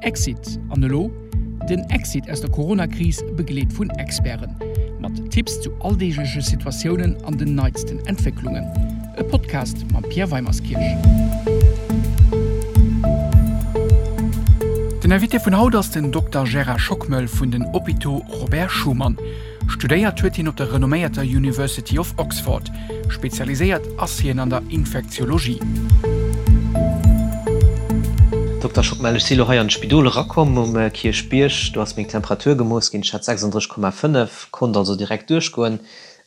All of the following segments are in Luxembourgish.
Exit, An elo? Den Exit aus der Corona-Kris, begleet vun Experten. Mat Tipps zu alldeegleche Situatiounen an den neitsten Entwécklungen. E Podcast mam Pierre Weimerskirch. Den Invité vun haut ass den Dokter Gérard Schockmel vun den Hôpitaux Robert Schuman. Studéiert huet hien op der renomméierter University of Oxford. Spezialiséiert ass hien an der Infektiologie. Dokter Schockmel, ech si lo hei an d'Spidol erakomm um Kierchbierg. Do ass meng Temperatur gemooss ginn, ech hat 36,5, konnt also direkt duerchgoen.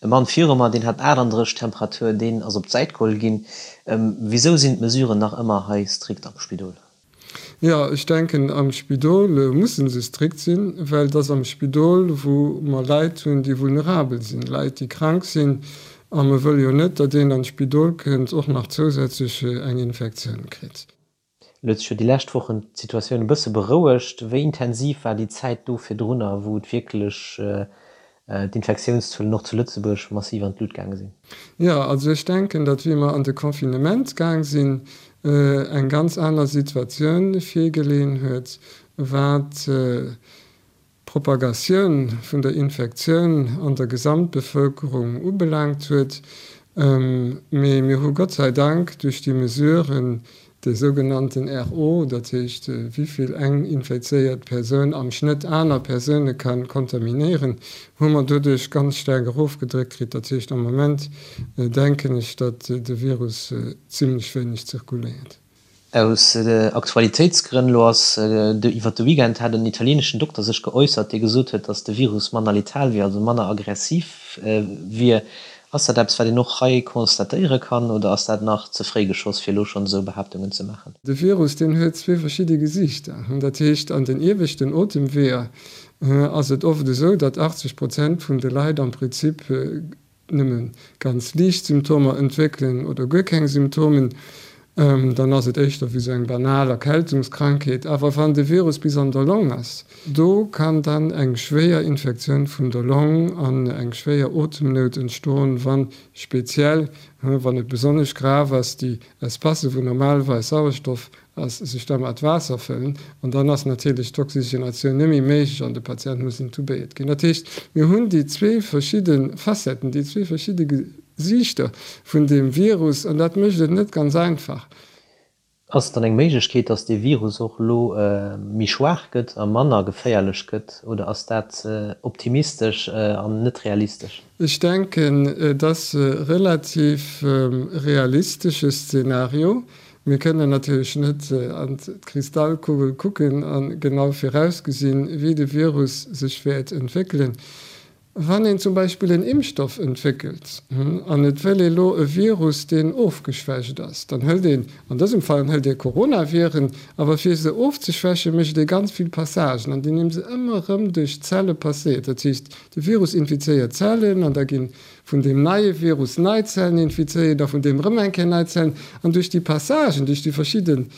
E Mann viru mer, deen hat 38 Temperatur, deen ass op d'Säit geholl ginn. Wisou sinn d'Mesuren nach ëmmer hei strikt am Spidol? Jo, ech denken, am Spidol musse se strikt sinn, well et ass am Spidol, wou mer Leit hunn, déi vulnerabel sinn, Leit, déi krank sinn. A mer wëlle jo net, datt een an d'Spidol kënnt, och nach zousätzlech eng Infektioun kritt. Elo huet sech jo déi lescht Wochen d'Situatioun e bësse berouegt. Wéi intensiv war déi Zäit do virdrunner, wou et wierklech d'Infektiounszuelen och zu Lëtzebuerg massiv an d'Lut gaange sinn? Jo, also ech denken, datt wéi mer an de Confinement gaang sinn, eng ganz aner Situatioun virgeleeën huet, wat d'Propagatioun vun der Infektioun an der Gesamtbevëlkerung ubelaangt huet. Mee mir hu Gott sei Dank duerch déi Mesuren, De sougenannten RO, dat heescht wéi vill eng infizéiert Persoun am Schnëtt aner Persoune ka kontaminéieren, hu mer doduerch ganz staark erofgedréckt kritt. Dat heescht am Moment denken ech, datt de Virus zimlech wéineg zirkuléiert. Aus Aktualitéitsgrënn, elo ass iwwer de Weekend hat en italieneschen Dokter sech geäussert, dee gesot huet, datt de Virus manner letal wier, also manner aggressiv wier. Ass dat eppes, wat een och hei constatéiere kann, oder ass dat nach ze fréi geschoss, fir elo schonn esou Behaaptungen ze maachen? De Virus, deen huet zwee verschidde Gesiichter. Dat heescht, an den ieweschten Otemweeër ass et oft esou, datt 80 Prozent vun de Leit am Prinzip nëmme ganz liicht Symptomer entwéckelen oder guer keng Symptomen. Dann ass et éischter wéi sou eng banal Erkältungskrankheet. Awer wann de Virus bis an der Long ass, do kann dann eng schwéier Infektioun vun der Long an eng schwéier Otemnout entstoen, wann speziell, wann et besonnesch grav ass, déi Espacë wou normalerweis Sauerstoff ass, sech da mat Waasser fëllen. An dann ass natierlech d'Oxygenatioun net méi méiglech an de Patient muss intubéiert ginn. Dat heescht, mir hunn déi zwee verschidde Facetten, déi zwee verschidde Gesiichter vun deem Virus, an dat mécht et net ganz einfach. Ass et dann eng Méiglechkeet, datt dee Virus och elo méi schwaach gëtt a manner geféierlech gëtt, oder ass dat optimistesch an net realistesch? Ech denken, et ass e relativ realistesche Szenario. Mir kënnen natierlech net an d'Kristallkugel kucken a genau virausgesinn, wéi de Virus sech wäert entwéckelen. Wann een zum Beispill en Impfstoff entwéckelt an et wëll ee lo e Virus, deen ofgeschwächt ass, dann hëlt een, an dësem Fall hëlt ee Coronaviren, awer fir se ofzeschwächen, mécht ee ganz vill Passagen, an deem se ëmmer erëm duerch d'Zelle passéiert. Dat heescht, de Virus infizéiert Zellen an da gi vun deem neie Virus nei Zellen infizéiert a vun deem erëm eng Kéier nei Zellen. An duerch déi Passagen, duerch déi verschidden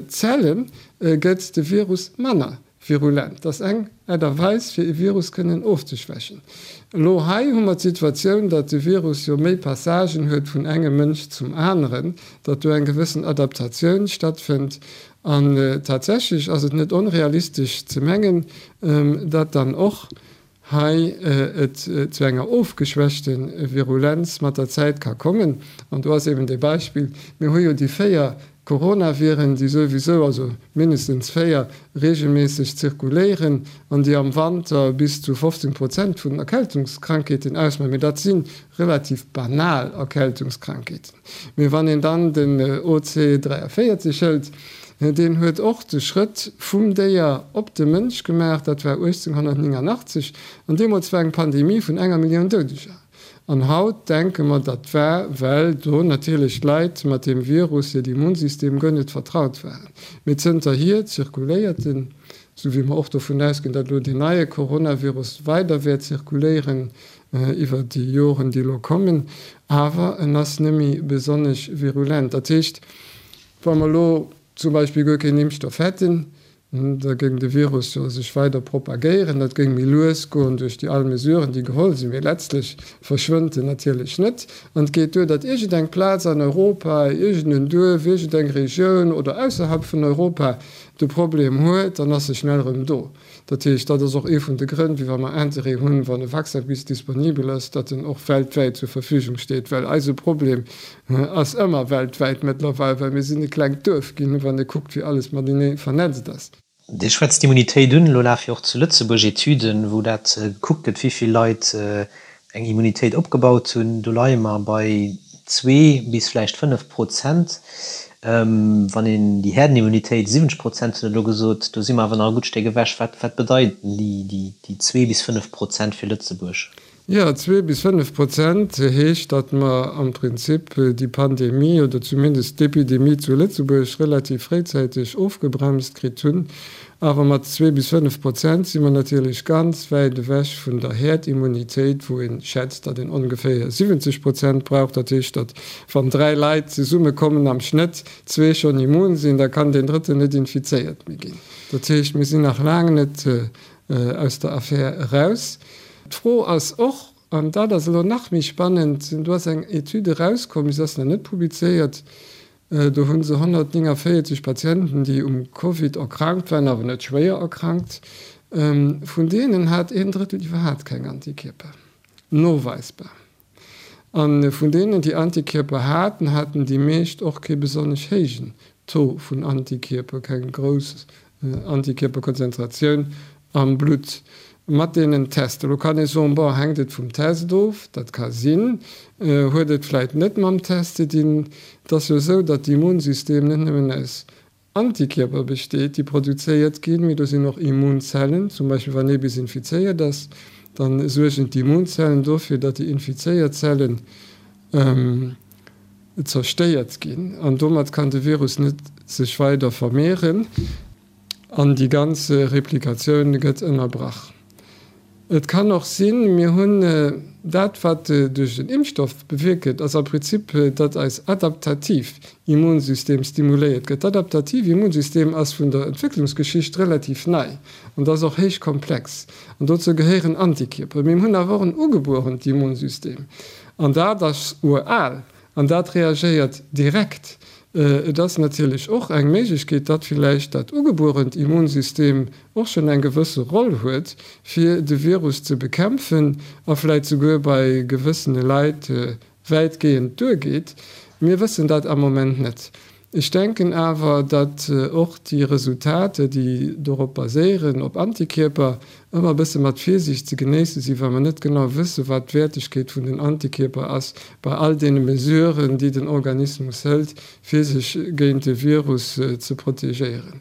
Zelle gëtt de Virus manner Virulent. Dat ass eng Aart a Weis, fir e Virus kënnen ofzeschwächen. Elo hei hu mer d'Situatioun, datt de Virus jo méi Passagen huet vun engem Mënsch zum aneren, datt do eng gewëssen Adaptatioun stattfënnt. An tatsächlech ass et net onrealistesch ze mengen, datt dann och hei et zu enger ofgeschwächte Virulenz mat der Zäit ka kommen. An do ass eben dee Beispill, mir hu jo déi 4 Coronaviren, déi souwisou, also mindestens 4, regelméisseg zirkuléieren an déi am Wanter bis zu 15 Prozent vun den Erkältungskrankheeten ausmaachen. Mee dat si relativ banal Erkältungskrankheeten. Mee wann een dann den OC 43 hëlt, deen huet och de Schrëtt vum Déier op de Mënsch gemaach, dat war 1889, an deemools war eng Pandemie vun enger Millioun Doudeger. An haut denke mer, dat war, well do natierlech d'Leit mat deem Virus, hiert Immunsystem guer net vertraut waren. Mee zënterhier zirkuléiert en, esou wéi mer och dovun ausginn, datt elo deen neie Coronavirus weider wäert zirkuléieren iwwer déi Joren, déi elo kommen, awer en ass net méi besonnesch virulent. Dat heescht, wa mer elo zum Beispill guer keen Impfstoff hätten. Da géing de Virus jo sech weider propagéieren. Dat géing méi lues goen duerch déi all Mesuren, déi geholl sinn. Mee letztlech verschwënnt en natierlech net. An et geet duer, datt iergendeng Plaz an Europa, iergend en Duerf, iergendeng Regioun oder ausserhalb vun Europa de Problem huet, dann ass e schnell erëm do. Dat heescht, dat ass och ee vun de Grënn, wéi wa mer Interêt hunn, wann e Vaccin bis disponibel ass, datt en och weltwäit zur Verfügung steet, well eise Problem ass ëmmer weltwäit mëttlerweil, well mir sinn e klengt Duerf ginn, wann ee kuckt, wéi alles matenee vernetzt ass. Dir schwätzt d'Immunitéit un. Elo lafe jo och zu Lëtzebuerg Etüden, wou dat gekuckt gëtt, wéi vill Leit eng Immunitéit opgebaut hunn. Do leie mer bei zwee bis vläicht 5%. Wann een déi Häerdenimmunitéit, 70% hutt Der elo gesot, do si mer awer nach e gutt Stéck ewech. Wat, wat bedeiten déi, déi zwee bis 5% fir Lëtzebuerg? Jo, zwee bis 5% heescht, datt mer am Prinzip déi Pandemie oder zumindest d'Epidemie zu Lëtzebuerg relativ fréizäiteg ofgebremst kritt hunn. Awer mat zwee bis 5% si mer natierlech ganz wäit ewech vun der Häerdimmunitéit, wou ee schätzt, datt een ongeféier 70 Prozent brauch. Dat heescht, datt wann dräi Leit zesummekommen, am Schnëtt zwee schonn immun sinn, da kann deen drëtten net infizéiert méi ginn. Dat heescht, mir sinn nach laang net aus der Affär eraus. D'Fro ass och, an dat ass elo nach méi spannend, do ass eng Etüd erauskomm, se ass nach net publizéiert, Do hu se 149 Patienten, déi um Covid erkrankt waren, awer net schwéier erkrankt. Vun deenen hat een Drëttel iwwerhaapt keng Antikierper, noweisbar. A vun deenen, déi Antikierper haten, haten déi meescht och kee besonnesch héijen Taux vun Antikierper, keng grouss Antikierperkonzentratioun am Blutt mat deenen Tester. Elo kann ee soen, bon, hänkt et vum Test of? Dat ka sinn. Huet et vläit net mam Test ze dinn? Et ass jo esou, datt d'Immunsystem net nëmmen aus Antikierper besteet, déi produzéiert ginn, mee do sinn och Immunzellen. Zum Beispill wann ee bis infizéiert ass, da suergen d'Immunzellen dofir, datt déi infizéiert Zellen zerstéiert ginn an domat kann de Virus net sech weider vermehren an déi ganz Replikatioun gëtt ënnerbrach. Et kann och sinn, mir hunn dat wat duerch den Impfstoff bewierkt gëtt, ass am Prinzip, datt eis adaptativ Immunsystem stimuléiert gëtt. D'adaptativ Immunsystem ass vun der Entwécklungsgeschicht relativ nei an ass och héich komplex an dozou gehéieren Antikierper. Mee mir hunn awer och en ugebuerent Immunsystem An dat ass ural an dat reagéiert direkt. Et ass natierlech och eng Méiglechkeet, datt villäicht dat ugebuerent Immunsystem och schonn eng gewësse Roll huet, fir de Virus ze bekämpfen a vläicht souguer bei gewëssene Leit wäitgehend duergeet. Mir wëssen dat am Moment net. Ech denken awer, datt och déi Resultater, déi dorop baséieren, op Antikierper, ëmmer e bësse mat Virsiicht ze genéisse sinn, well mer net genau wëssen, wat d'Wäertegkeet vun den Antikierper ass bei all deene Mesuren, déi den Organismus hëlt, fir sech géint de Virus ze protegéieren.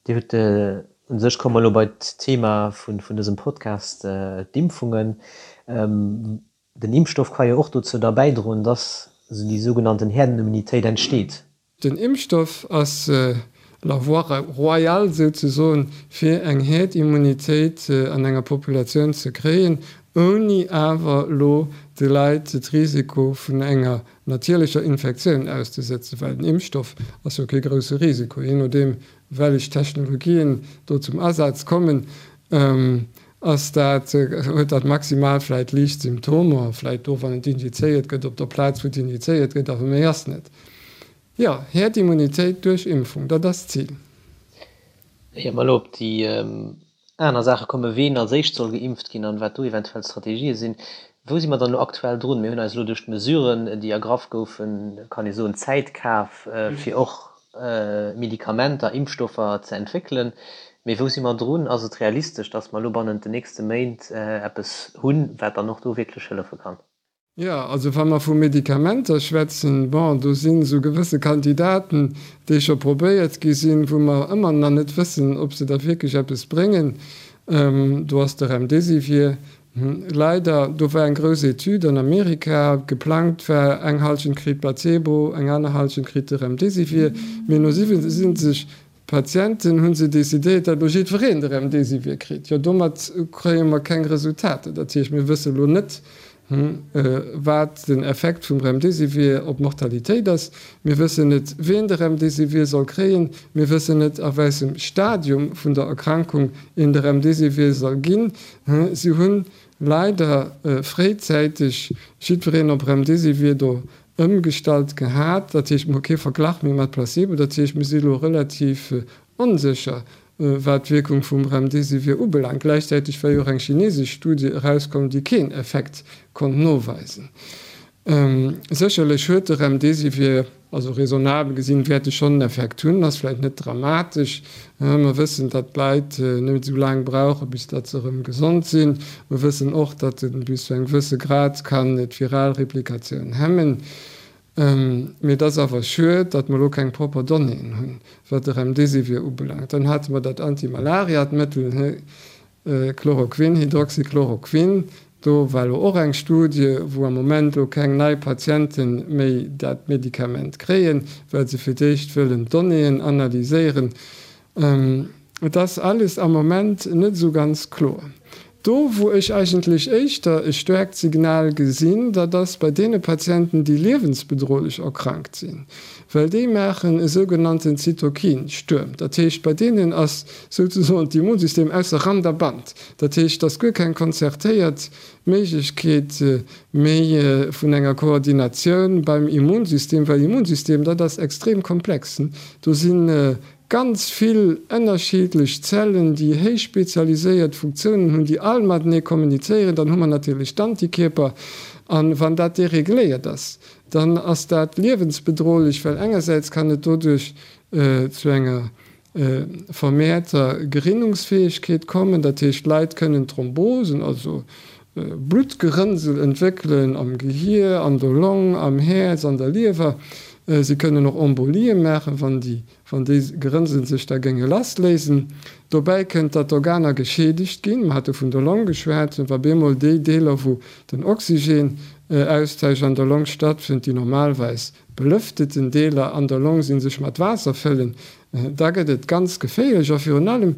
Dir hutt, u sech komme mer elo bei d'Thema vun dësem Podcast, d'Impfungen. Den Impfstoff ka jo och dozou da bäidroen, dass déi sougenannten Herdenimmunitéit entsteet. Den Impfstoff ass la voie royale souzesoen, fir eng Herdimmunitéit an enger Populatioun ze kréien, ouni awer elo de Leit de Risiko vun enger natierlecher Infektioun auszesëtzen, well den Impfstoff ass jo kee grousse Risiko, jee nodeem wellech Technologien do zum Asaz kommen. Ass dat, huet dat maximal vläit liicht Symptomer, vläit do wann et injizéiert gëtt, op der Plaz wou et injizéiert gëtt, awer méi ass net. Jo, Herdimmunitéit duerch Impfung, dat ass d'Zil. Ier mer elo op déi aner Saache kommen, ween als éischt soll geimpft ginn an wat do eventuell d'Strategië sinn, wou si mer dann elo aktuell drun? Mir hunn eis elo duerch d'Mesuren, déi ergraff goufen, kann ee soen, Zäit kaf, fir och Medikamenter, Impfstoffer ze entwéckelen. Mee wou si mer drun? Ass et realistesch, datt mer elo bannent den nächste Méint eppes hunn, wat dann och do wierklech hëllefe kann? Jo, also wa mer vu Medikamenter schwätzen, bon, do sinn esou gewësse Kandidaten, déi scho probéiert gi sinn, wou mer ëmmer nach net wëssen, ob se da wierklech eppes bréngen. Do ass de Remdesivir, Leider, do war eng grouss Etüd an Amerika, geplangt war, eng Halschent kritt Placebo, eng aner Halschent kritt de Remdesivir, mee no 77 Patienten hu se decidéiert, datt elo jiddwereen de Remdesivir kritt. Jo, domat kréie mer keng Resultater. Dat heescht, mir wësse elo net. wat den Effekt vum Remdesivir op d'Mortalitéit ass. Mir wëssen net, wien de Remdesivir soll kréien. Mir wëssen net, a wäissem Stadium vun der Erkrankung een de Remdesivir soll ginn. Si hunn leider fréizäiteg jiddwereen op Remdesivir do ëmgestallt gehat. Dat heescht, mir hu kee Verglach méi mat Placebo. Dat heescht, mir si elo relativ onsécher, wat d'Wierkung vum Remdesivir ubelaangt. Gläichzäiteg war jo och eng chinesesch Studie erauskomm, déi keen Effekt konnt noweisen. Sécherlech huet de Remdesivir, also raisonnabel gesinn, wäert e schonn en Effekt hunn, ass vläicht net dramatesch. Mer wëssen, datt d'Leit net esou laang brauchen, bis datt se erëm gesond sinn. Mer wëssen och, datt e bis zu engem gewësse Grad kann d'viral Replikatioun hemmen. Mee et ass awer schued, datt mer elo keng propper Donnéeën hunn, wat de Remdesivir ubelaangt. Dann hate mer dat Antimalariatmëttel, Chloroquin, Hydroxychloroquin. Do war elo och eng Studie, wou am Moment elo keng nei Patiente méi dat Medikament kréien, well se fir d'éischt wëllen d'Donnéeën analyséieren. Et ass alles am Moment net esou ganz kloer. Do wou ech eigentlech éischter e staarkt Signal gesinn, dat ass bei deene Patienten, déi liewensbedrohlech erkrankt sinn, well déi maachen e sougenannten Zytokin-Stuerm. Dat heescht, bei deenen ass souzesoen d'Immunsystem ausser Rand a Band. Dat heescht, et ass guer keng konzertéiert Méiglechkeet méi vun enger Koordinatioun beim Immunsystem, well Immunsystem, dat ass extrem komplex. Do si Ganz vill ënnerschiddlech Zellen, déi héich spezialiséiert Funktiounen hunn, déi all matenee kommunizéieren. Dann hu mer natierlech d'Antikierper. A wann dat deregléiert ass, dann ass dat liewensbedrohlech, well engersäits kann et doduerch zu enger vermehrter Gerinnungsfäegkeet kommen, dat heescht d'Leit kënnen Thrombosen, also Bluttgerënnsel entwéckelen am Gehier, an der Long, am Häerz, an der Liewer. Si kënnen och Embolie maachen, wann déi wann déi Gerënnsel sech da géinge lassléisen. Dobäi kënnt, datt d'Organer geschiedegt ginn. Mer hate vun der Long geschwat. Wa bemol déi Deeler, wou den Oxygenaustausch an der Long stattfënnt, déi normalweis belëfteten Deeler an der Long sinn, sech mat Waasser fëllen, da gëtt et ganz geféierlech. A virun allem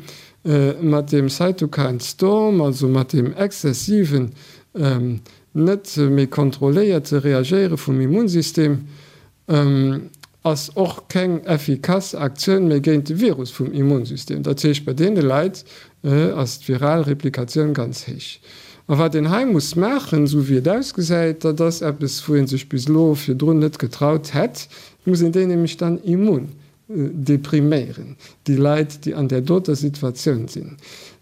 mat deem Cytokine Storm, also mat deem exzessiven, net méi kontrolléierte Reagéiere vum Immunsystem, ass och keng effikass Aktioun méi géint de Virus vum Immunsystem. Dat heescht, bei deene Leit ass d'viral Replikatioun ganz héich. A wat een hei muss maachen, esou wéi et ausgesäit, dat ass eppes, wou ee sech bis elo virdrun net getraut hätt, et muss een déi nämlech dann immun depriméieren, déi Leit, déi an där doter Situatioun sinn.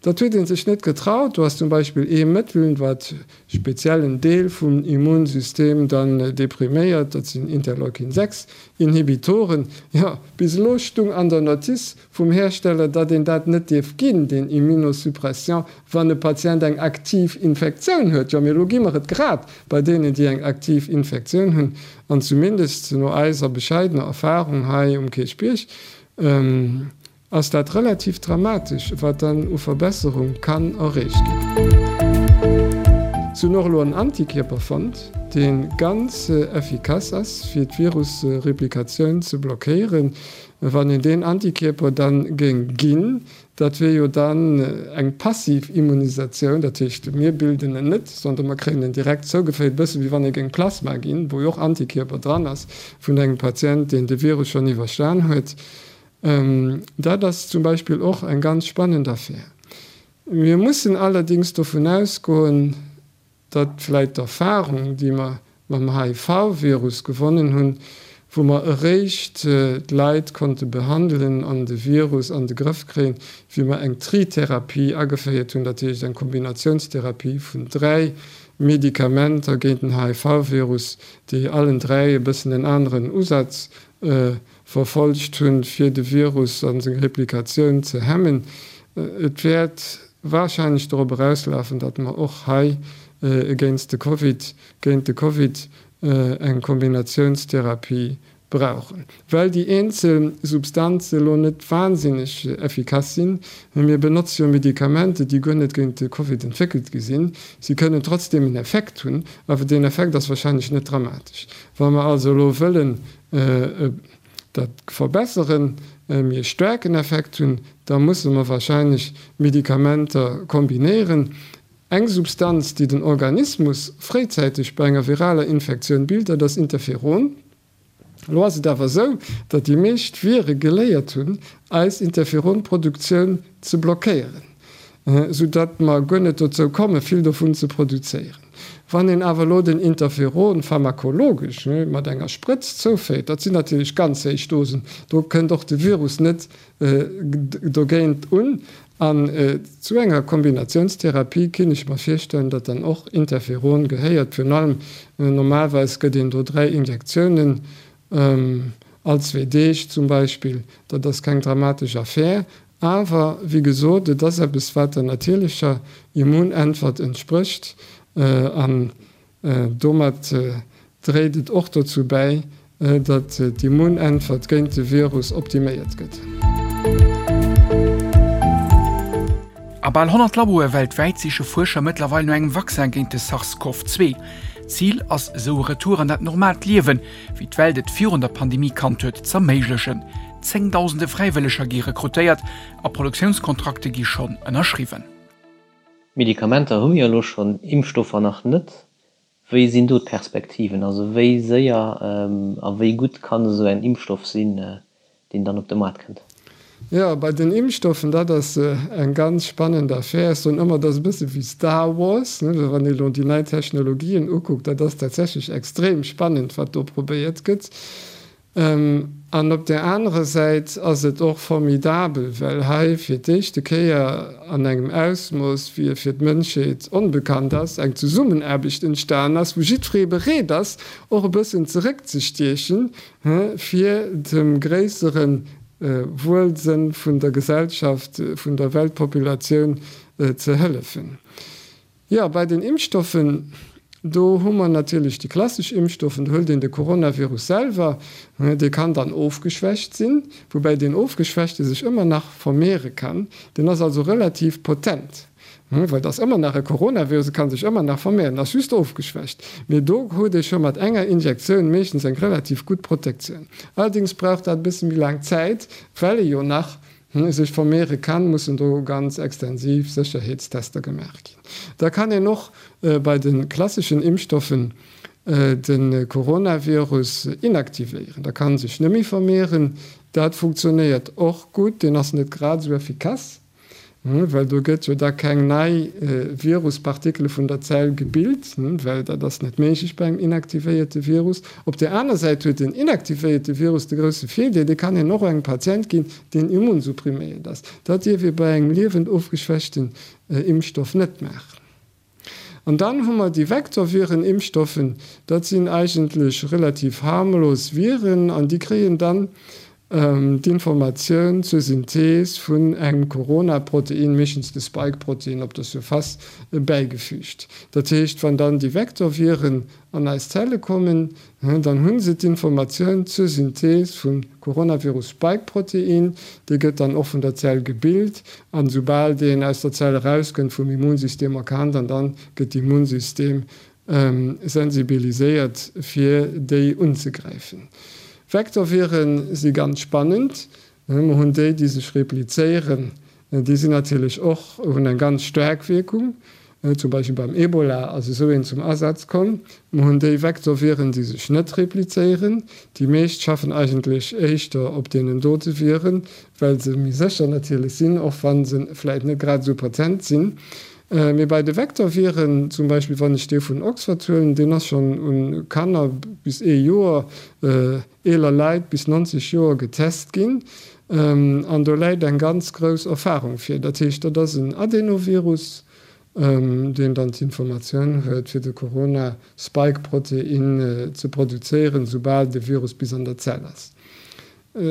Dat huet ee sech net getraut. Do ass zum Beispill ee Mëttel, wat speziell en Deel vum Immunsystem dann depriméiert, dat sinn Interleukin 6 Inhibitoren. Jo, bis elo stung an der Notice vum Hersteller, datt een dat net dierf ginn, deen Immunosuppression, wann e Patient eng aktiv Infektioun huet. Jo, mee elo gi mer et grad bei deenen, déi eng aktiv Infektioun hunn. An zumindest no eiser bescheidener Erfahrung hei um Kierchbierg ass dat relativ dramatesch, wat dann u Verbesserung kann erreecht ginn. Se hunn och elo en Antikierper fonnt, dee ganz effikass ass, fir d'Virusreplikatioun ze blockéieren. Wann een deen Antikierper dann géing ginn, Dat wier jo dann eng passiv Immunisatioun, dat heescht, mir bilden en net, sondern mer kréien en direkt zougeféiert, e bësse wéi wann ee géing Plasma ginn, wou jo och Antikierper dran ass, vun engem Patient, deen de Virus schonn iwwerstan huet. Dat ass zum Beispill och eng ganz spannend Affär. Mir mussen allerdéngs dovun ausgoen, datt vläit d'Erfahrung, déi mer mam HIV-Virus gewonnen hunn, wou mer eréischt d'Leit konnte behandelen an de Virus an de Grëff kréien, wéi mer eng Tritherapie ageféiert hunn, dat heescht eng Kombinatiounstherapie vun 3 Medikamenter géint den HIV-Virus, déi allen 3 e bëssen en aneren Usaz verfollegt hunn, fir de Virus a seng Replikatioun ze hemmen. Et wäert warscheinlech dorop erauslafen, datt mer och hei géinst de Covid, géint de Covid eng Kombinatiounstherapie brauchen, well déi eenzel Substanze elo net wahnsinneg effikass sinn. Mir benotze jo Medikamenter, déi guer net géint de Covid entwéckelt gi sinn. Si kënnen trotzdeem en Effekt hunn, awer deen Effekt ass warscheinlech net dramatesch. Wa mer also elo wëllen dat verbesseren, e méi staarken Effekt hunn, da musse mer wahrscheinlech Medikamenter kombinéieren. Eng Substanz, déi den Organismus fréizäiteg bei enger viraler Infektioun bilt, dat ass Interferon. Elo ass et awer esou, datt déi meescht Vire geléiert hunn, eis Interferonproduktioun ze blockéieren, sou datt mer guer net dozou komme vill dovun ze produzéieren. Wann een awer elo den Interferon pharmakologesch mat enger Sprëtz zouféiert, dat sinn natierlech ganz héich Dosen, do kënnt och de Virus net dogéint un. An zu enger Kombinatiounstherapie kinn ech mer virstellen, datt dann och Interferon gehéiert. Virun allem, normalerweis gëtt een do 3 Injektiounen all zwee Deeg zum Beispill. Dat ass keng dramatesch Affär. Awer, wéi gesot, et ass eppes, wat der natierlecher Immunäntwert entsprécht. An Domat dréit et och dozou bäi, datt d'Immunäntwert géint de Virus optiméiert gëtt. A bal 100 Laboe weltwäit siche Fuerscher mëttlerweil no engem Vaccin géint de SARS-CoV-2. Zil ass esou e Retour an dat normaalt Liewen, wéi d'Welt et virun der Pandemie kannt huet, z'erméiglechen. Zéngdausende Fräiwëlleger gi rekrutéiert a Produktiounskontrakte gi schonn ënnerschriwwen. Medikamenter hu mir jo elo schonn, Impfstoffer nach net. Wéi sinn do d'Perspektiven? Also wéi séier a wéi gutt kann esou en Impfstoff sinn, deen dann op de Maart kënnt? Jo, bei den Impfstoffen, dat ass eng ganz spannend Affär. Ech soen ëmmer, dat ass e bësse wéi Star Wars, ne, wann ee elo déi nei Technologien ukuckt. Dat ass tatsächlech extrem spannend, wat do probéiert gëtt. An op där anerer Säit ass et och formidabel, well hei fir d'éischte Kéier an engem Ausmooss, wéi e fir d'Mënschheet onbekannt ass, eng Zesummenaarbecht entstan ass, wou jiddweree bereet ass, och e bëssen zeréckzestiechen, fir dem gréissere Wuelsënn vun der Gesellschaft, vun der Weltpopulatioun ze hëllefen. Jo, bei den Impfstoffen, do hu mer natierlech déi klassesch Impfstoffen. Do hëlt een de Coronavirus selwer, dee kann dann ofgeschwächt sinn, woubäi deen ofgeschwächte sech ëmmer nach vermehren kann. Deen ass also relativ potent, well et ass ëmmer nach e Coronavirus, e ka sech ëmmer nach vermehren, ass just ofgeschwächt. Mee do huet ee scho mat enger Injektioun meeschtens eng relativ gutt Protektioun. Allerdéngs brauch dat e bësse méi laang Zäit, well e jo nach sech vermeere kann, mussen do ganz extensiv Sécherheetstester gemaach ginn. Da kann een och bei de klasseschen Impfstoffen de Coronavirus inaktivéieren, da kann en sech net méi vermeeren. Dat funktionéiert och gutt, deen ass net grad esou effikass. Well do gëtt jo da keng nei Viruspartikele vun der Zell gebilt, well dat ass net méiglech bei engem inaktivéierte Virus. Op där aner Säit huet den inaktivéierte Virus de grousse Virdeel, dee kann een och engem Patient ginn, deen immunsuppriméiert ass. Dat dierf ee bei engem liewend ofgeschwächten Impfstoff net maachen. An dann hu mer déi Vektorviren-Impfstoffen, dat sinn eigentlech relativ harmlos Viren an déi kréien dann d'Informatioun zur Synthees vun engem Corona-Protein, meeschtens de Spike-Protein, op der Surface bäigefügt. Dat heescht, wann dann déi Vektorviren an eis Zelle kommen, Dann hu se d'Informatioun zur Synthees vum Coronavirus-Spike-Protein. Dee gëtt dann och vun der Zell gebilt an esoubal deen aus der Zell erauskënnt, vum Immunsystem erkannt an dann gëtt d'Immunsystem sensibiliséiert fir déi unzegräifen. Vektorviren si ganz spannend. Mer hunn déi, déi sech replizéieren, déi sinn natierlech och, hunn eng ganz staark Wierkung. Zum Beispill beim Ebola ass esou een zum Asaz komm. Mer hunn déi Vektorviren, déi sech net replizéieren. Déi meescht schaffen eigentlech éischter op deenen dote Viren, well se méi sécher natierlech sinn, och wa se vläicht net grad esou potent sinn. Mee bei de Vektorviren, zum Beispill wann ech dee vun Oxford huelen, deen ass schonn u Kanner bis ee Joer, eeler Leit bis 90 Joer getest ginn an do läit eng ganz grouss Erfahrung vir. Dat heescht, dat ass en Adenovirus, deen dann d'Informatioun huet, fir de Corona-Spike-Protein ze produzéieren, soubal de Virus bis an der Zell ass.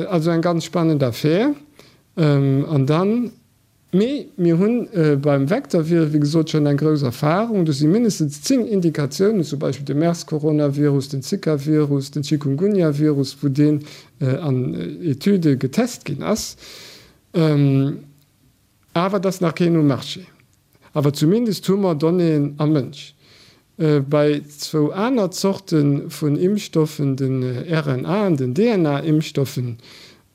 Also eng ganz spannend Affär. An dann Mee mir hu beim Vektorvirus, wéi gesot, schonn eng grouss Erfahrung. Do si mindestens 10 Indikatiounen, zum Beispill de MERS-Coronavirus, den Zika-Virus, den Chikungunya-Virus, wou deen an Etüde getest ginn ass. Awer et ass nach keen um Marché. Awer zumindest hu mer Donnéeën am Mënsch. Bei zwou aner Zorte vun Impfstoffen, den RNA an den DNA-Impfstoffen,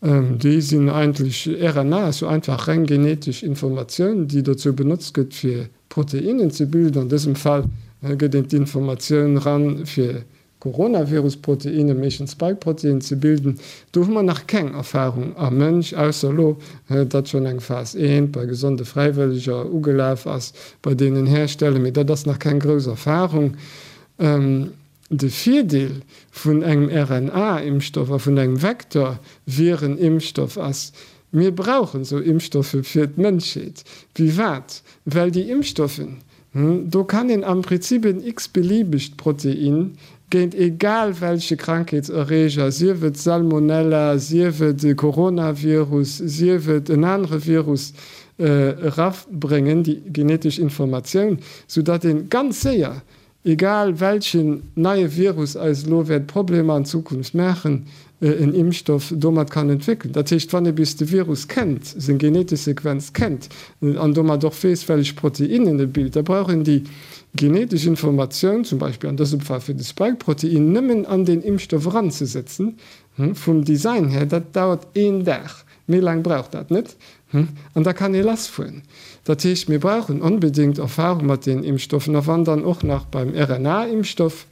déi sinn eigentlech, RNA ass jo einfach reng genetesch Informatioun, déi dozou benotzt gëtt, fir. Proteinnen ze bilden. An dësem Fall gëtt een d'Informatioun ran, fir Coronavirus-Proteinnen, meeschtens Spike-Protein, ze bilden. Do hu mer nach keng Erfarung am Mënsch, ausser elo, datt schonn eng Phas I bei gesonde Fräiwëlleger ugelaf ass bei deenen Hersteller, mee dat ass nach keng grouss Erfarung. De Virdeel vun engem RNA-Impfstoff a vun engem Vektor-Viren-Impfstoff ass, Mir brauchen esou Impfstoffe fir d'Mënschheet. Wéi wat? Well déi Impfstoffen, do kann een am Prinzip en x-beliebegt Protein géint egal welche Krankheetserreger, sief et Salmonella, sief et e Coronavirus, sief et en anere Virus, erabréngen, déi genetesch Informatioun, soudatt ee ganz séier Egal welchen neie Virus eis elo wäert Problemer an Zukunft maachen, en Impfstoff domat kann entwéckelen. Dat heescht, wann ee bis de Virus kennt, seng genetesch Sequenz kennt an domat och weess, wellech Proteinnen e bilt, da brauch een déi genetesch Informatioun, zum Beispill an dësem Fall fir de Spike-Protein, nëmmen an deen Impfstoff eranzesetzen. Vum Design här, dat dauert een Dag, méi laang brauch dat net. An da kann ee lassfueren. Dat heescht, mir brauchen onbedéngt Erfahrung mat deenen Impfstoffen. A wann dann och nach beim RNA-Impfstoff,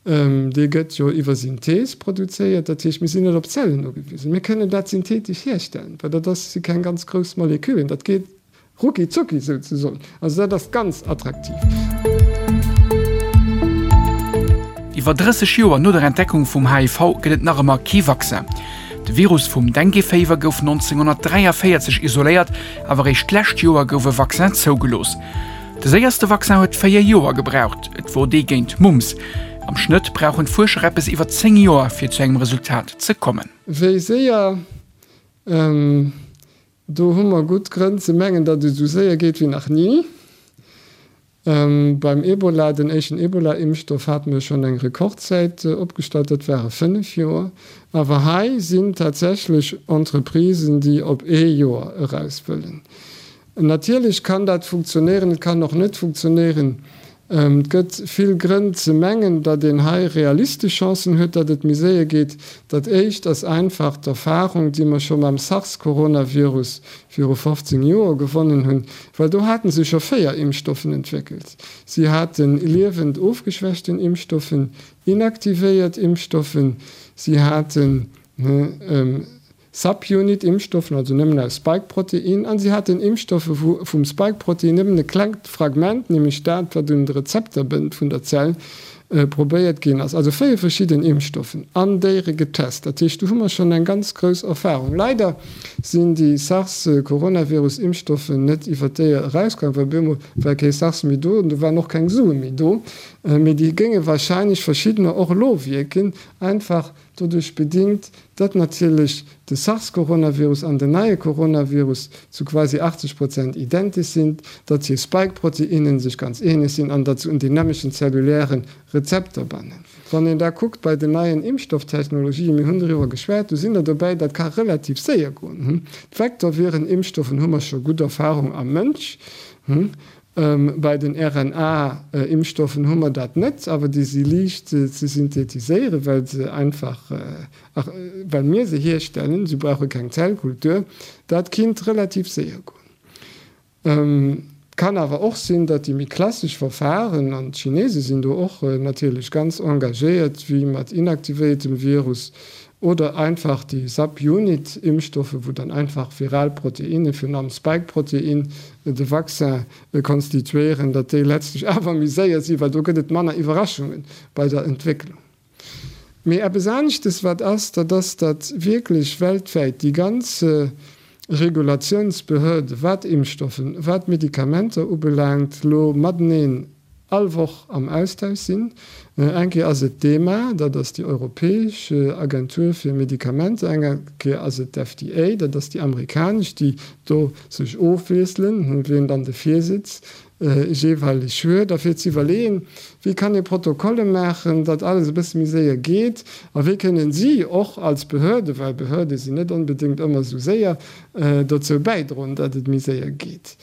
dee gëtt jo iwwer Synthees produzéiert, dat heescht, mir sinn net op Zellen ugewisen, mir kënnen dat synthetesch hierstellen, well dat ass, si keng ganz grouss Moleküllen, dat geet Rucki zucki souzesoen. Also dat ass ganz attraktiv. Iwwer 30 Joer no der Entdeckung vum HIV gëtt et nach ëmmer kee Vaccin. De Virus vum Dengue-Féiwer gouf 1943 isoléiert, awer eréischt d'lescht Joer gouf e Vaccin zougelooss. De séierste Vaccin huet 4 Joer gebraucht, et wor dee géint Mumps. Am Schnëtt brauchen d'Fuerscher eppes iwwer 10 Joer, fir zu engem Resultat ze kommen. Wéi séier? Do hu mer gutt Grënn ze mengen, datt et esou séier geet wéi nach ni. Beim Ebola, den éischten Ebola-Impfstoff, hate mer schonn eng Rekordzäit opgestallt, dat ware 5 Joer. Awer hei sinn tatsächlech Entreprisen, déi op ee Joer eraus wëllen. Natierlech kann dat funktionéieren, et kann och net funktionéieren. Et gëtt vill Grënn ze mengen, datt een hei realistesch Chancen huet, datt et méi séier geet. Dat éischt ass einfach d'Erfarung, déi mer scho mam SARS-Coronavirus viru 15 Joer gewonnen hunn, well do hate se scho 4 Impfstoffen entwéckelt. Si hate liewend ofgeschwächten Impfstoffen, inaktivéiert Impfstoffen, si haten Subunit-Impfstoffen, also nëmmen aus Spike-Protein, an si haten Impfstoffe wou vum Spike-Protein nëmmen e klengt Fragment, nämlech dat wat un de Rezepter bënnt vun der Zell, probéiert ginn ass. Also 4 verschidden Impfstoffen an Déiere getest. Dat heescht, do hu mer schonn eng ganz grouss Erfahrung. Leider sinn déi SARS-Coronavirus-Impfstoffen net iwwer d'Déier erausgaangen, well op eemol war kee SARS méi do an do waren och keng Sue méi do. Mee déi géinge wahrscheinlech verschiddener och elo wierken, einfach Doduerch bedingt, datt natierlech de SARS-Coronavirus an den neie Coronavirus zu quasi 80 Prozent identesch sinn, datt hir Spike-Proteinnen sech ganz ähnlech sinn an datt se un deen nämmlechen zelluläre Rezepter bannen. Wann een da kuckt bei den neien Impfstofftechnologien, mir hunn doriwwer geschwat, do sinn der dobäi, dat ka relativ séier goen. D'Vektorviren-Impfstoffen hu mer scho gutt Erfahrung am Mënsch. Bei den RNA-Impfstoffen hu mer dat net, awer déi si liicht ze synthetiséieren, well se einfach, well mir se hierstellen, se brauche keng Zellkultur. Dat kinnt relativ séier goen. Et kann awer och sinn, datt déi méi klassesch Verfahren, an d'Chinese sinn do och natierlech ganz engagéiert, wéi mat inaktivéiertem Virus oder einfach déi Subunit-Impfstoffe, wou dann einfach viral Proteinne, virun allem Spike-Protein, de Vaccin konstituéieren, datt déi letztlech awer méi séier sinn, well do gëtt et manner Iwwerraschunge bei der Entwécklung. Mee eppes aneschtes wat ass, dat ass, datt wierklech weltwäit déi ganz Regulatiounsbehörde wat Impfstoffen, wat Medikamenter ubelaangt, elo mateneen all Woch am Austausch sinn. Eng Kéier ass et d'EMA, dat ass déi europäesch Agentur fir Medikamenter, eng Kéier ass et d'FDA, dat ass déi amerikanesch, déi do sech ofwiesselen, wien dann de Virsitz jeeweileg huet, a fir ze iwwerleeën, wéi kann ee Protokolle maachen, datt alles e bësse méi séier geet a wéi kënnen si och als Behörde, well Behörde sinn net onbedéngt ëmmer esou séier, dozou bäidroen, datt et méi séier geet.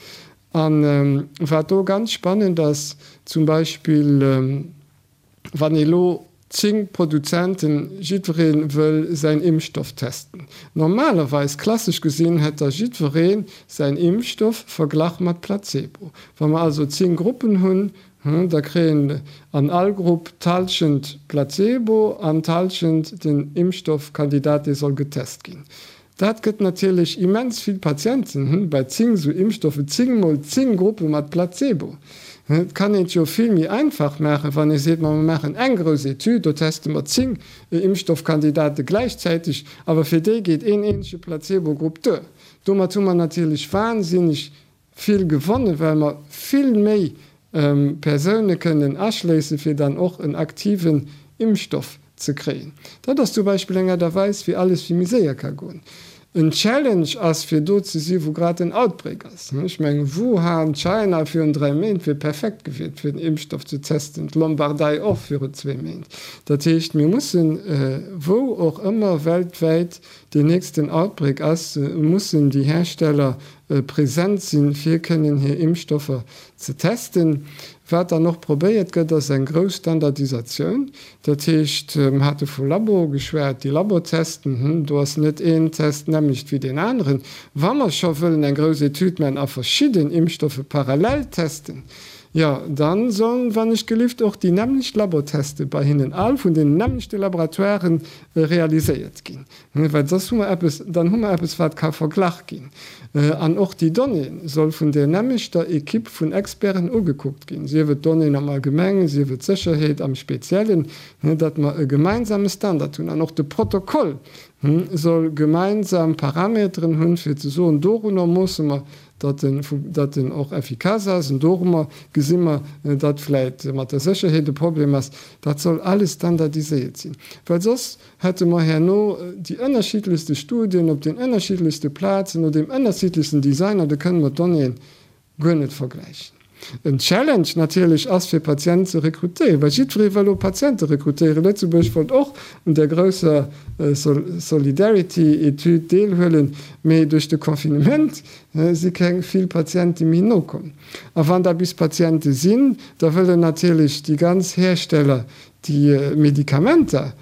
A wat do ganz spannend ass, zum Beispill wann ee lo. 10 Produzenten, jiddweree wëll säin Impfstoff testen. Normalerweis, klassesch gesinn, hätt da jiddweree säin Impfstoff verglach mat Placebo. Wa mer also 10 Gruppen hunn, da kréien an all Grupp d'Hallschent Placebo an d'Hallschent den Impfstoffkandidat, dee soll getest ginn. Dat gëtt natierlech immens vill Patienten, bei 10 esou Impfstoffe 10 mol 10 Gruppe mat Placebo. Et kann een et jo vill méi einfach maachen, wann ee seet, ma mer maachen eng grouss Etüd, do teste mer 10 Impfstoffkandidate gläichzäiteg, awer fir déi geet een eenzege Placebo-Grupp duer. Domat hu mer natierlech wahnsinneg vill gewonnen, well mer vill méi Persoune kënnen aschléissen, fir dann och en aktiven Impfstoff ze kréien. Dat ass zum Beispill eng Aart a Weis, wéi alles vill méi séier ka goen. En Challenge ass, fir do ze si wou grad en Outbreak ass. Ech mengen, Wuhan, China virun 3 Méint wier perfekt gewiert, fir den Impfstoff ze testen, d'Lombardei och virun zwee Méint. Dat heescht, mir mussen, wou och ëmmer weltwäit deen nächsten Outbreak ass, mussen déi Hersteller present sinn, fir kënnen hir Impfstoffer ze testen. Wat dann och probéiert gëtt, ass eng grouss Standardisatioun. Dat heescht, mer hate vu Labo geschwat, déi Labotesten, do ass net een Test d'nämmlecht wéi deen aneren. Wa mer scho wëllen eng grouss Etüd maachen a verschidden Impfstoffe parallel testen, jo, da sollen, wann ech gelift, och déi nämmlecht Laboteste bei hinnen all vun deenen nämmlechte Laboratoiren realiséiert ginn. Well soss hu mer eppes, dann hu mer eppes, wat ka verglach ginn. An och déi Donnée soll vun där nämmlechter Equipe vun Experten ugekuckt ginn, sief et d'Donnéeën am Allgemengen, sief et d'Sécherheet am Speziellen, datt mer e gemeinsame Standard hunn. An och de Protokoll soll gemeinsam Parameteren hunn, fir ze soen, dorunner moosse mer, datt en, datt en och effikass ass, an dorummer gesi mer, datt vläicht mat der Sécherheet e Problem ass. Dat soll alles standardiséiert sinn, well soss hätte mer herno déi ënnerschiddlechste Studien op den ënnerschiddlechste Plazen, no deem ënnerschiddlechsten Design, an da kënne mer d'Donnéeën guer net vergläichen. En Challenge natierlech ass, fir Patienten ze rekrutéieren, well jiddweree wëll elo Patiente rekrutéieren. Lëtzebuerg wollt och un där grousser Solidarity-Etüd deelhuelen, mee duerch de Confinement si keng vill Patiente méi nokomm. A wann da bis Patiente sinn, da wëllen natierlech déi ganz Hersteller déi Medikamenter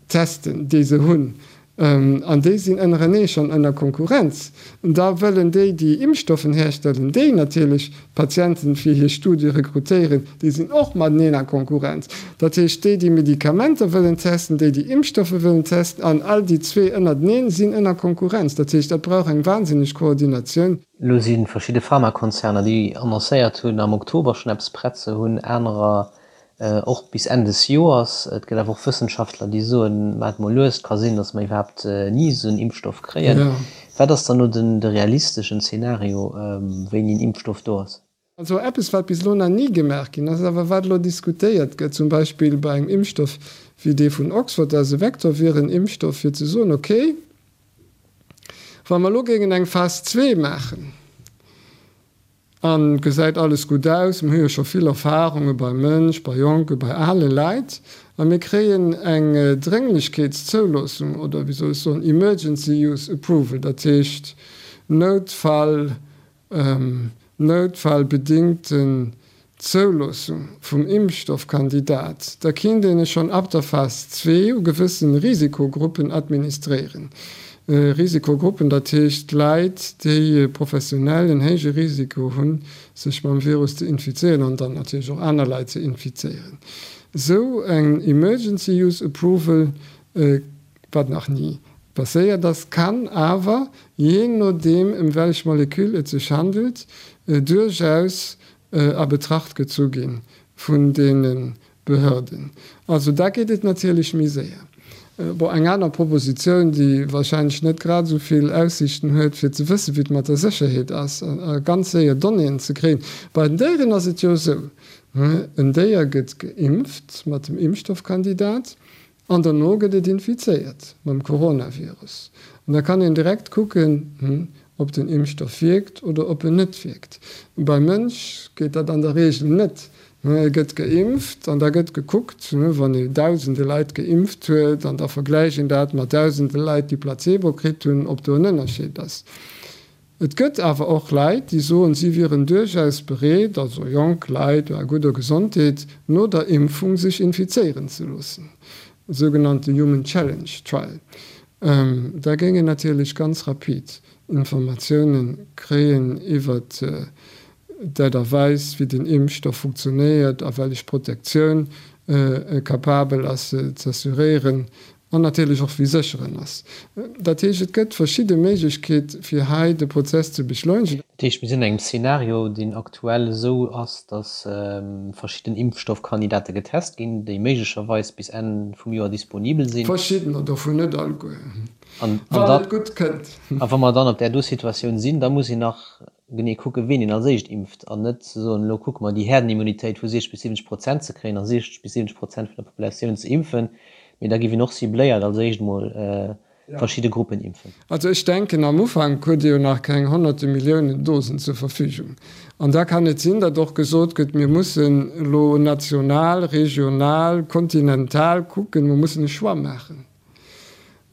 testen, déi se hunn, an déi sinn ënnerenee schonn ënner Konkurrenz, da wëllen déi, déi Impfstoffen herstellen, déi natierlech d'Patienten fir hir Studie rekrutéieren, déi sinn och mateneen a Konkurrenz. Dat heescht, déi, déi Medikamenter wëllen testen, déi, déi Impfstoffe wëllen testen, an all déi zwee ënnerteneen sinn ënner Konkurrenz. Dat heescht, dat brauch eng wahnsinneg Koordinatioun. Elo si verschidde Pharmakonzerner, déi annoncéiert hunn, am Oktober schonn eppes prett ze hunn, anerer Och bis Enn des Joers. Et gëtt awer och Wëssenschaftler, déi soen, maacht mol lues, et ka sinn, datt mer iwwerhaapt ni esou en Impfstoff kréien. Wat ass dann elo den de realisteschen Zeenario, wéini en Impfstoff do ass? Also eppes, wat bis elo nach ni gemaach ginn ass, awer wat elo diskutéiert gëtt, zum Beispill bei engem Impfstoff wéi dee vun Oxford, dat ass e Vektorviren-Impfstoff, fir ze soen, okay, wa mer elo géingen eng Phas zwee maachen, An gesäit alles gutt aus, mir hu jo scho vill Erfahrunge beim Mënsch, bei Jonke, bei ale Leit, a mir kréien eng Drénglechkeetszouloossung oder wéi soll ech soen, Emergency Use Approval, dat heescht Noutfall, noutfallbedingten Zouloossung vum Impfstoffkandidat, da kinnt een e schonn ab der Phas zwee u gewëssen Risikogruppen administréieren. Risikogruppen, dat heescht Leit, déi professionell en héije Risiko hunn, sech mam Virus ze infizéieren an dann natierlech och aner Leit ze infizéieren. Esou eng Emergency Use Approval, wat nach ni passéiert ass, kann awer, jee nodeem ëm wellech Moleküll et sech handelt, duerchaus a Betracht gezu gi vun deene Behörden. Also da geet et natierlech méi séier. Bon, eng aner Propositioun, déi wahrscheinlech net grad esou vill Aussiichten huet, fir ze wëssen, wéi et mat der Sécherheet ass a ganz séier Donnéeën ze kréien, Bei den Déieren ass et jo esou, En Déier gëtt geimpft mat dem Impfstoffkandidat An derno gëtt et infizéiert mam Coronavirus. An da kann een direkt kucken, ob den Impfstoff wierkt oder ob en net wierkt. Beim Mënsch geet dat an der Reegel net. E gëtt geimpft an da gëtt gekuckt, wann ee dausende Leit geimpft huet, an da vergläicht een dat mat dausende Leit, déi Placebo kritt hunn, ob do en Ënnerscheed ass. Et gëtt awer och Leit, déi soen, si wieren duerchaus bereet, also jonk Leit a gudder Gesondheet, no der Impfung sech infizéieren ze loossen, sougenannte Human Challenge Trial. Da géing een natierlech ganz rapid Informatioune kréien iwwert d'Aart a Weis, wéi den Impfstoff funktionéiert a wellech Protektioun e capabel ass z'assuréieren an natierlech och wéi sécher en ass. Dat heescht, et gëtt verschidde Méiglechkeet fir hei de Prozess ze beschleunegen. Dat heescht, mir sinn an engem Szenario, deen aktuell esou ass, datt verschidden Impfstoffkandidate getest ginn, déi méiglecherweis bis Enn vum Joer disponibel sinn. Verschiddener dovun, net alleguer, wann et gutt kënnt. A wa mer dann op där do Situatioun sinn, da muss een nach genee kucken, ween een als éischt impft an net ze soen, elo kucke mer déi Herdenimmunitéit vu 60 bis 70 Prozent ze kréien a 60 bis 70 Prozent vun der Populatioun ze impfen, mee da géif een och cibléiert als éischt emol verschidde Gruppen impfen. Also ech denken, am Ufank huet Dir jo nach keng honnerte Milliounen Dosen zur Verfügung. An da kann et sinn, datt och gesot gëtt, mir mussen elo national, regional, kontinental kucken, mer mussen e Choix maachen.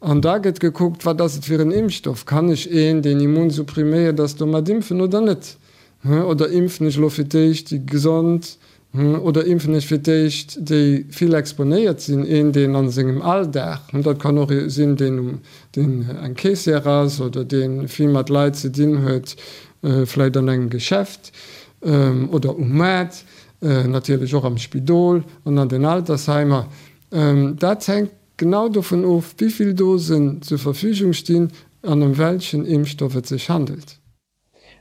An da gëtt gekuckt, wat ass et fir en Impfstoff? Kann ech een, deen immunsuppriméiert ass, domat impfen oder net? Oder impfen ech elo fir d'éischt déi Gesond oder impfen ech fir d'éischt déi vill exponéiert sinn? Een, deen a sengem Alldag, dat kann och ee sinn, deen um, deen eng Caissière ass oder dee vill mat Leit ze dinn huet, vläicht an engem Geschäft oder um Maart, natierlech och am Spidol an an den Altersheimer. Dat hänkt Genau dovun of, wéi vill Dosen zur Verfügung stinn an ëm welchen Impfstoff et sech handelt.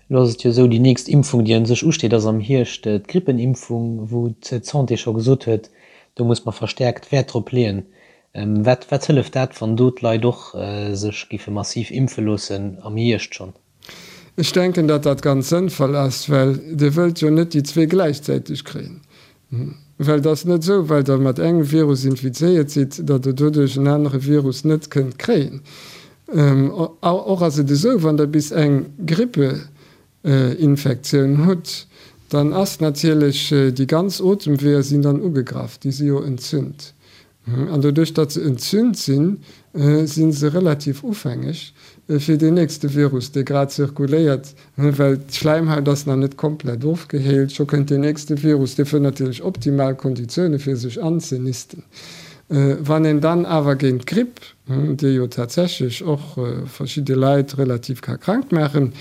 Elo ass et jo esou, déi nächst Impfung, déi un sech usteet, ass am Hierscht d'Grippenimpfung, wou d'Santé scho gesot huet, do muss mer verstäerkt Wäert drop leeën. Wat wat hëlleft dat, wann do d'Leit och sech géife massiv impfe loossen am Hierscht schonn? Ech denken, datt dat ganz sënnvoll ass, well Dir wëllt jo net déi zwee gläichzäiteg kréien. Well et ass net esou, well Der mat engem Virus infizéiert sidd, datt Der doduerch en anere Virus net kënnt kréien. Och ass et esou, wann Der bis eng Grippeinfektioun hutt, dann ass natierlech déi ganz Otemweeër sinn dann ugegraff, déi si jo entzünt. An doduerch, datt se entzünt sinn, si se relativ ufängeg fir deen nächste Virus, dee grad zirkuléiert, well d'Schläimhaut ass nach net komplett ofgeheelt. Scho kënnt deen nächste Virus, dee fënnt natierlech optimal Konditioune fir sech anzenisten. Wann een dann awer géint d'Gripp, déi jo tatsächlech och verschidde Leit relativ ka krank maachen,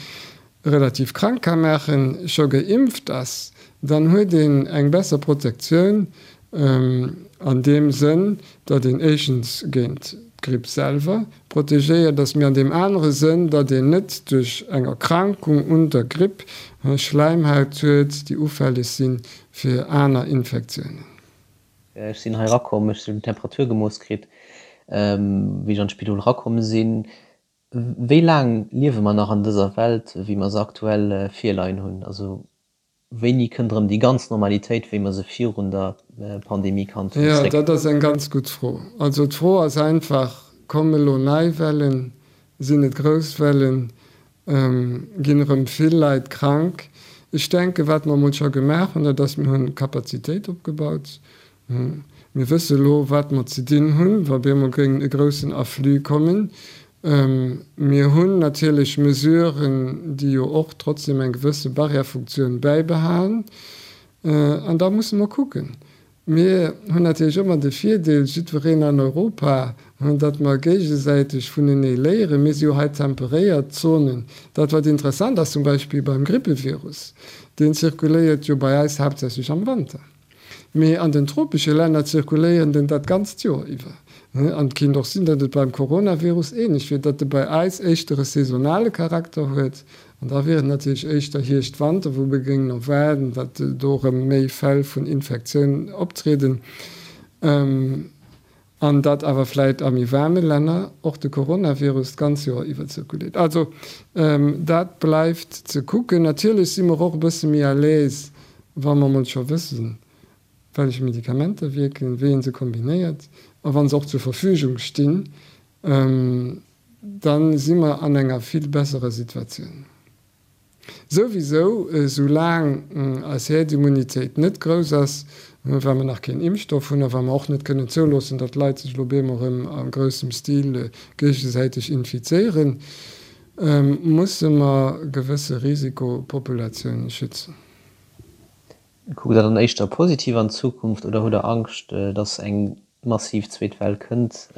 relativ krank ka maachen, scho geimpft ass, dann huet een eng besser Protektioun an deem Sënn, datt een éischtens géint d'Gripp selwer protegéiert ass, mee an deem anere Sënn, datt een net duerch eng Erkrankung un der Gripp Schläimhaut huet, déi ufälleg si fir aner Infektiounen. Ech sinn hei erakomm, ech hunn d'Temperatur gemooss kritt, wéi ech an d'Spidol erakomm sinn. Wéi laang liewe mer nach an dëser Welt, wéi mer se aktuell virleien hunn? Also wéini kënnt erëm déi ganz Normalitéit, wéi mer se virun der Pandemie kannt hunn, Jo, zréck? dat ass eng ganz gutt Fro. Also d'Fro ass einfach, Komme elo nei Wellen? Sinn et grouss Wellen? Ginn erëm vill Leit krank? Ech denken, wat mer emol scho gemaach hunn, dat ass, mir hunn Kapazitéit opgebaut. Mir wësse elo, wat mer ze dinn hunn, wa bemol géing e groussen Afflux kommen. Mir hunn natierlech Mesuren, déi jo och trotzdem eng gewësse Barrièrefunktioun bäibehalen. An da musse mer kucken. Mir hunn natierlech ëmmer de Virdeel, jiddwereen an Europa, datt mer géigesäiteg vunenee léieren. Mir si jo hei temperéiert Zonen. Dat, wat interessant ass zum Beispill beim Grippevirus, deen zirkuléiert jo bei eis haaptsächlech am Wanter. Mee an den tropesche Länner zirkuléieren den dat ganzt Joer iwwer. An et kinnt och sinn, datt et beim Coronavirus ähnlech wier, datt e bei eis éischter e saisonale Charakter huet. An da wier et natierlech éischter Hierscht-Wanter, wou mir géingen erwaarden, datt do erëm méi Fäll vun Infektiounen optrieden. An datt awer vläit a méi waarme Länner och de Coronavirus d'ganz Joer iwwer zirkuléiert. Also dat bleift ze kucken. Natierlech si mer och e bësse méi à l'aise, wa mer emol scho wëssen, wellech Medikamenter wierken, wéi ee se kombinéiert a wa se och zur Verfügung stinn, da si mer an enger vill besserer Situatioun. Souwisou, esou laang eis Häerdimmunitéit net grouss ass, well mer nach keen Impfstoff hunn a well mer och net kënnen zouloossen, datt d'Leit sech elo op eemol erëm a groussem Stil géigesäiteg infizéieren. musse mer gewësse Risikopopulatiounen schützen. Kuckt Der dann éischter positiv an d'Zukunft oder hutt Der Angscht, dass eng massiv zweet Well kënnt?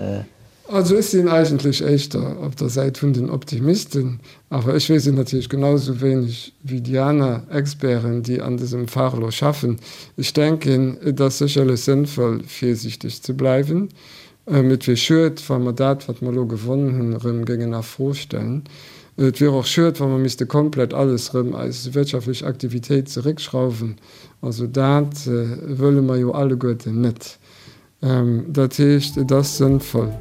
Also ech sinn eigentlech éischter op der Säit vun den Optimisten, awer ech weess et natierlech genau esou wéineg wéi déi aner Experten, déi an dësem Fach elo schaffen. Ech denken, et ass sécherlech sënnvoll, virsiichteg ze bleiwen. Et wier schued, wa mer dat, wat mer elo gewonnen hunn, erëm géingen a Fro stellen. Et wier och schued, wa mer misste komplett alles erëm, eis wirtschaftlech Aktivitéit zeréckschrauwen. Also dat wëlle mer jo alleguerten net. Dat heescht, et ass sënnvoll,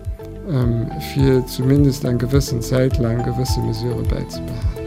fir zumindest eng gewëssen Zäit laang gewësse Mesurë bäizebehalen.